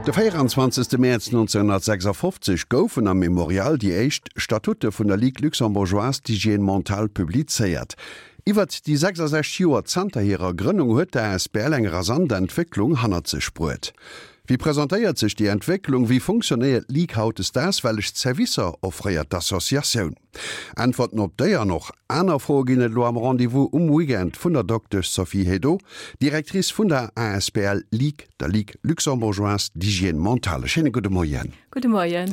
De 24. Mäerz 1956 goufen am Memorial déi éischt Statute vun der Ligue luxembourgeoise d'hygiène mentale publizéiert. Iwwert déi 66 Joer zanter hirer Grënnung huet d'ASBL eng rasant Entwécklung hannert sech bruet. Wéi presentéiert sech déi Entwécklung? Wéi funktionéiert d'Ligue hautdesdaags? Wellech Servicer offréiert d'Associatioun? Äntwerten op déi an och aner Froe ginn et elo am Rendez-vous um Weekend vun der Doktesch Sophie Hédo, Directrice vun der asbl Ligue, der Ligue luxembourgeoise d'hygiène mentale. E schéine gudde Moien. Gudde Moien.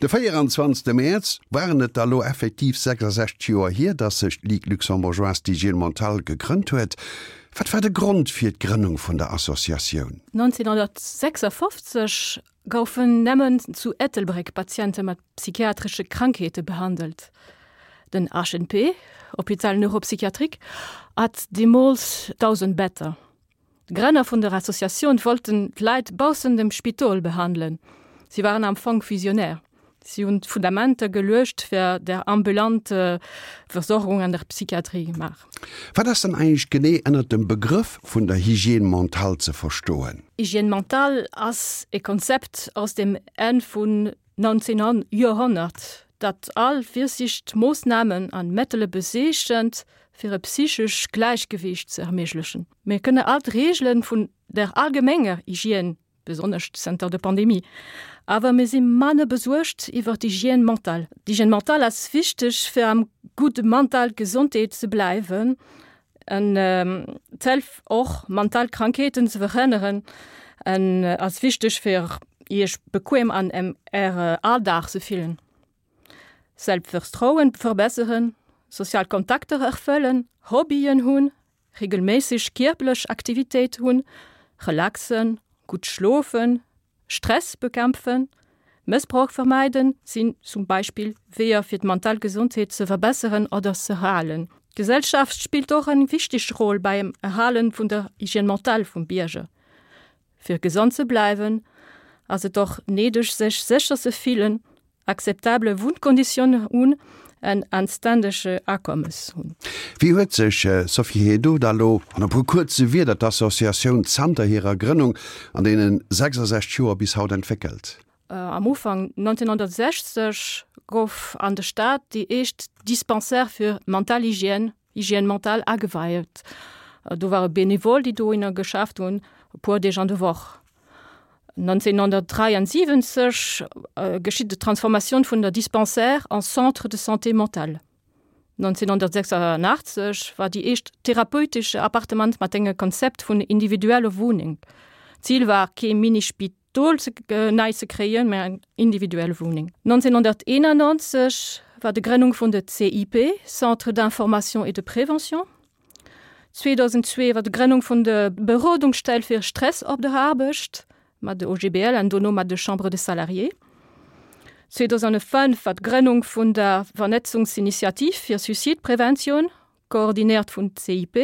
De 24. Mäerz waren et da lo effektiv 66 Joer hier, dass sech d'Ligue luxembourgeoise d'hygiène mentale gegrënnt huet. Wat war de Grond fir d'Grënnung vun der Associatioun? 1956 goufen nëmmen zu Ettelbréck Patiente mat psychiatresche Krankheete behandelt. Den HNP, Hôpital neuropsychiatrique, hat deemools 1.000 Better. D'Grënner vun der Associatioun wollten d'Leit baussent dem Spidol behandelen. Si waren am Fong Visionär. Si hunn d'Fundamenter geluecht fir der ambulante Versorgung an der Psychiatrie gemaach. Wat ass dann eigentlech genee ënnert dem Begrëff vun der Hygiène mentale ze verstoen? Hygiène mentale ass e Konzept aus dem Enn vun 19. Joerhonnert, dat all Virsiichtmoossnamen an Mëttele bezeechent, fir e psychesch Gläichgewiicht ze erméiglechen. Mir kënne all d'Reegele vun der allgemenger Hygiène besonnesch zënter der Pandemie. Awer mir si manner besuergt iwwer d'Hygiène mentale. D'Hygiène mentale ass wichteg, fir am gudde mental Gesondheet ze bleiwen an d'hëlf och, mental Krankheeten ze verhënneren an ass wichteg, fir Iech bequem an Äre Alldag ze fillen. Selbstvertrauen verbesseren, sozial Kontakter erfëllen, Hobbyen hunn, Regelméisseg kierperlech Aktivitéit hunn, relaxen, gutt schlofen, Stress bekämpfen, Mëssbrauch vermeiden sinn zum Beispill Weeër fir d'mental Gesondheet ze verbesseren oder z'erhalen. D'Gesellschaft spillt och eng wichteg Roll beim Erhalen vun der Hygiène mentale vum Bierger. Fir gesond ze bleiwen, ass et och néideg sech sécher ze fillen, akzeptabele Wunnkonditiounen hunn en anständege Akommes hunn. Wéi huet sech, Sophie Hédo, da lo an e puer kuerze Wierder d'Associatioun zanter hirer Grënnung an deene 66 Joer bis haut entwéckelt? Am Ufank 1960 gouf an der Stad déi éischt Dispensaire fir mental Hygiène, Hygiène mentale, ageweiht. Do ware Benevol, déi dohinner geschafft hunn, e puer Deeg an der Woch. 1973 geschitt d'Transformatioun vun der Dispensaire en Centre de santé mentale. 1986 war déi éischt therapeutesch Appartement mat engem Konzept vun individuelle Wunneng. D'Zil war kee Mini-Spidol nei ze kréien, mä eng individuell Wunneng. 1991 war de Grënnung vun de CIP, Centre d'information et de prévention. 2002 war de Grënnung vun de Berodungsstell fir Stress op der Aarbecht mat de OGBL an dono mat de Chambre des Salariés. 2005 war d'Grënnung vun der Vernetzungsinitiativ fir Suizidpreventioun, koordinéiert vun CIP,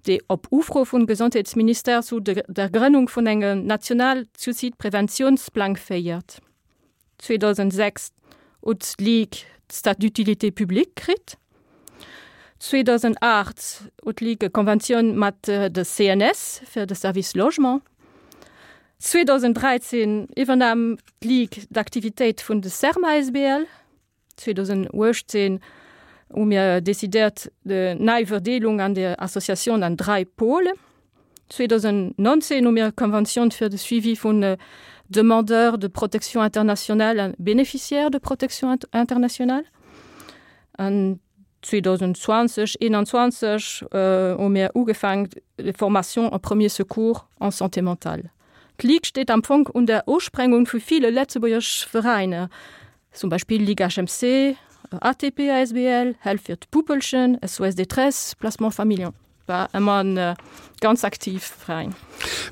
déi op Ufro vum Gesondheetsministère zu der Grënnung vun engem national Suizidpreventiounsplang féiert. 2006 huet d'Ligue d'Statut d'utilité publique kritt. 2008 huet d'Ligue e Konventioun mat de CNS fir de Service Logement. 2013 iwwernahm d'Ligue d'Aktivitéit vun de Serma asbl. 2018 hu mir decidéiert de nei Verdeelung an der Associatioun an 3 Pôles. 2019 hu mir e Konventioun fir de Suivi vun Demandeurs de protection internationale an Bénéficiaires de protection internationale. An 2020, 21 hu mir ugefaangen Formation en premiers secours en santé mentale. D'Ligue steet am Fong un der Usprengung vu ville Lëtzebuerger Veräiner, zum Beispill Ligue HMC, ATP asbl, Help fir d'Puppelchen, SOS Détresse, Placement Familien. War ëmmer en ganz aktiv Veräin.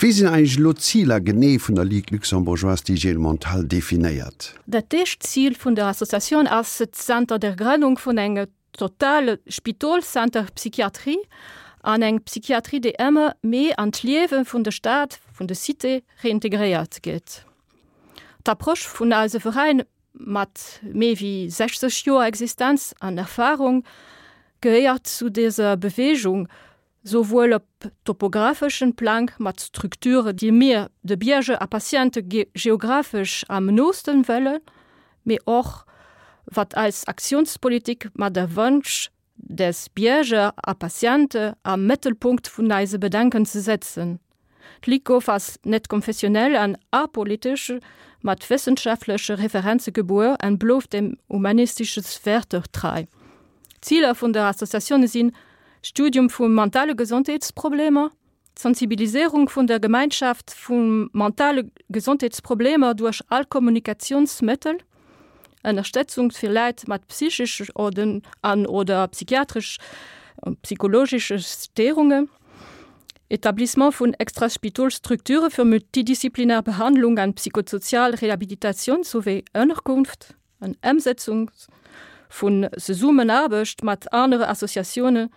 Wéi sinn eigentlech elo d'Ziler genee vun der Ligue luxembourgeoise d'hygiène mentale definéiert? Dat éischt Zil vun der Associatioun ass et zanter der Grënnung vun engem totale Spitolscenter Psychiatrie an eng Psychiatrie déi ëmmer méi an d'Liewe vun der Stad, vun der Cité reintegréiert gëtt. D'Approche vun eise Veräin mat méi wéi 60 Joer Existenz an Erfahrung gehéiert zu dëser Beweegung. Souwuel op topographeschen Plang mat Strukture déi mir de Bierger a Patiente geographesch am noosten wëllen, mee och wat eis Aktiounspolitik mat der Wënsch des Bierger a Patiente am Mëttelpunkt vun eise Bedenken ze setzen. D'Ligue ass net konfessionell an apolitesch, mat wëssenschaftleche Referenze gebuer an blouft dem humanistesche Wäerter trei. D'Ziler vun der Associatioun sinn, Studium vu mentale Gesondheetsproblemer, d'Sensibiliséierung vun der Gemeinschaft vu mentale Gesondheetsproblemer duerch all Kommunikatiounsmëttel, Ënnerstëtzung fir Leit mat psychesch an oder psychiatresch psychologesche Stéierungen, Etablissement vun Extraspitolstrukture fir multidisziplinär Behandlung an psychosozial Rehabilitatioun souwéi Ënnerkunft an Ëmsetzung vun Zesummenaarbecht mat anere Associatioune,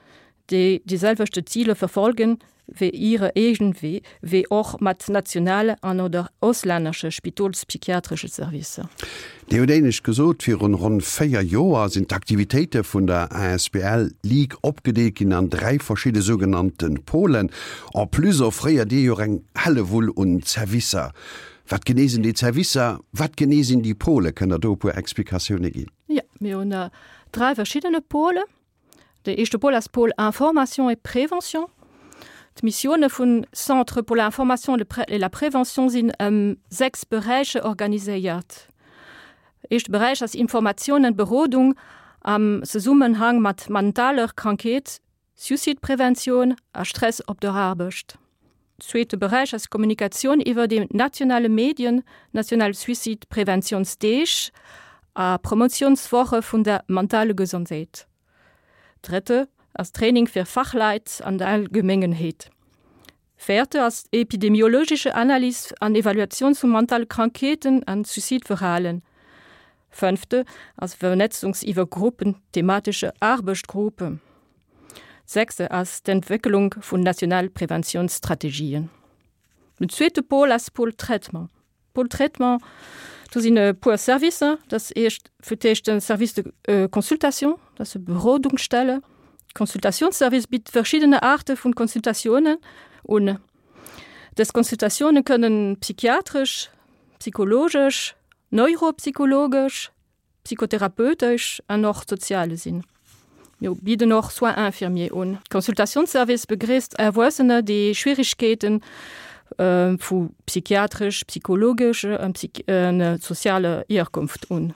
déi déi selwechte Ziler verfolgen wéi hire eegen, wéi och mat nationale an oder auslännesche spitolspsychiatresche Servicer. Dir hutt éinescht gesot, virun ronn 4 Joer sinn d'Aktivitéite vun der asbl Ligue opgedeelt ginn an 3 verschidde sougenannte Pôlen. En plus offréiert Dir jo och eng Hellewull un Zerwisser. Wat genee sinn déi Zerwisser? Wat genee sinn déi Pôle? Kënnt Der do e puer Explikatioune ginn? Jo, mir hunn 3 verschiddene Pôle. De éischte Pôle ass Pôle Information et Prévention. D'Missioune vun Centre pour l'information et la prévention sinn ëm 6 Beräicher organiséiert. Éischte Beräich ass Informatioun an Berodung am Zesummenhang mat mentaler Krankheet, Suicidepreventioun a Stress op der Aarbecht. Zweete Beräich ass Kommunikatioun iwwer déi nationale Medien, national Suicidepreventiounsdeeg a Promotiounswoche vun der mentale Gesondheet. Drëtte ass Training fir Fachleit an der Allgemengenheet. Véierte ass epidemiologesche Analys an Evaluatioun vu mentale Krankheeten an Suicideverhalen. Fënnfte ass Vernetzungs iwwer Gruppen, thematesche Aarbechtgruppe. Sechste ass d'Entwécklung vun nationale Preventiounsstrategien. Den zweete Pôle ass Pôle Traitement. Pôle Traitement, do sinn e puer Servicer. Dat ass eescht fir d'éischt de Service de consultation, dat ass e Berodungsstelle. Consultatiounsservice bitt verschiddene Aarte vun Consultatiounen un. Dës Consultatioune kënnen psychiatresch, psychologesch, neuropsychologesch, psychotherapeutesch an och soziale sinn. Mir bidden och Soins infirmiers un. Consultatiounsservice begréisst Erwuessener, déi Schwierigkeete vu psychiatresch, psychologesch an sozialer Hierkonft un.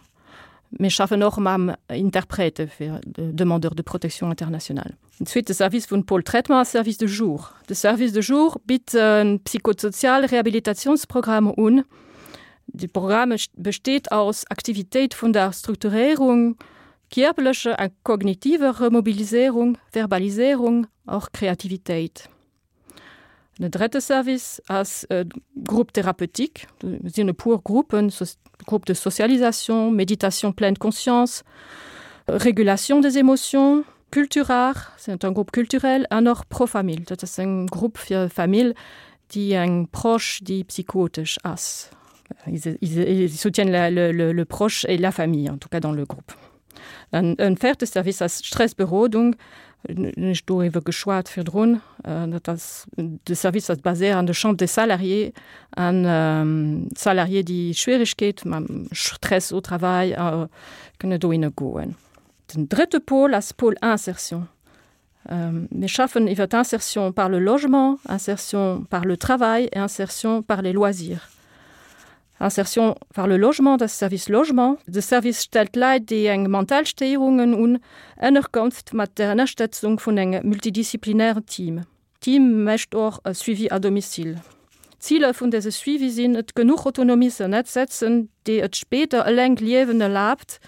Mir schaffen och mam Interprète fir Demandeurs de protection internationale. Den zweete Service vun Pôle Traitement ass Service de jour. De Service de jour bitt e psychosoziale Rehabilitatiounsprogramm un. De Programme besteet aus Aktivitéit vun der Strukturéierung, kierperlecher a kognitiver Remobiliséierung, Verbaliséierung, och Kreativitéit. Den drëtte Service ass e Groupe thérapeutique. Do sinn e puer Gruppen, Groupe de socialisation, Méditation pleine conscience, Régulation des émotions, Culturart, c'est un groupe culturel, an och Profamil, dat ass eng Grupp fir Famill, déi eng Proche, déi psychotesch ass. Ils, ils, ils soutiennent la, le, le, le proche et la famille, en tout cas dans le groupe. En en véierte Service ass d'Stressberodung, hunn ech doriwwer geschwat virdrun. Dat ass de Service ass baséiert an de Chambre des Salariés an d'Salariés, déi Schwierigkeet mam Stress au travail kënne dohinne goen. Den drëtte Pôle ass Pôle Insertion. Mir schaffen iwwer d'Insertion par le logement, Insertion par le travail et Insertion par les loisirs. Insertion par le logement, dat ass Service Logement. De Service stellt Leit, déi eng mental Stéierungen hunn, Ënnerkonft mat der Ënnerstëtzung vun engem multidisziplinären Team. D'Team mécht och e Suivi à domicile. D'Ziler vun dëse Suivi sinn et, genuch Autonomie ze ënnersetzen, déi et spéider eleng Liewen erlaabt,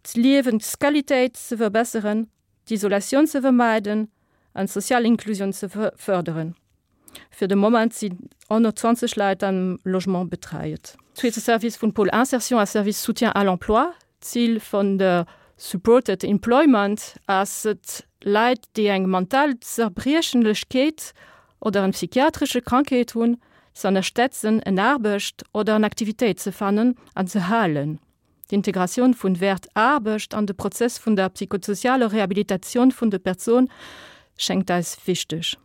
d'Liewensqualitéit ze verbesseren, d'Isolatioun ze vermeiden an d'sozial Inklusioun ze fërderen. Fir de Moment sinn 120 Leit am Logement betreiet. Zweete Service vun Pôle Insertion ass Service Soutien à l'emploi. D'Zil vun der Supported Employment ass et, Leit, déi eng mental Zerbriechenlechkeet oder en psychiatresche Krankheet hunn, ze ënnerstetzen, en Aarbecht oder en Aktivitéit ze fannen an ze halen. D'Integratioun vun Wäert Aarbecht an de Prozess vun der psychosozialer Rehabilitatioun vun de Persoun. schéngt eis wichteg.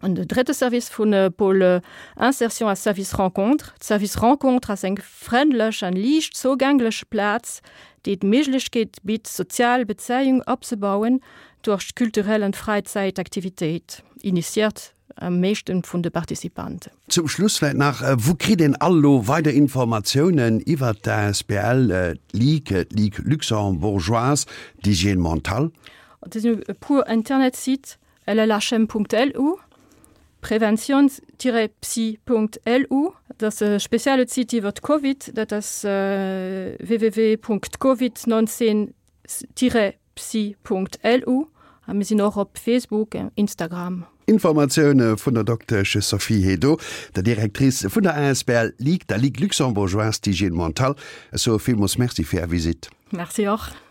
An de drëtte Service vun Pôle Insertion ass Service Rencontre. D'Service Rencontre ass eng frëndlech an liicht zougänglech Plaz, déi d'Méiglechkeet bitt, sozial Bezéiung opzebauen duerch kulturell an Fräizäitaktivitéit, initiiert am meeschten vun de Participanten. Zum Schluss vläit nach, Wou kritt een all elo weider Informatiounen iwwert d'ASBL, d'Ligue, d'Ligue luxembourgeoise d'hygiène mentale? Et sinn e puer Internetsite, llhm.lu, prevention-psy.lu, dat ass e spezielle Site iwwer d'Covid, dat ass www.covid19-psy.lu a mir sinn och op Facebook, Instagram. Informatioune vun der Doktesch Sophie Hédo, der Directrice vun der asbl Ligue, der Ligue luxembourgeoise d'hygiène mentale. Ech soe villmools Merci fir Är Visitt. Merci och.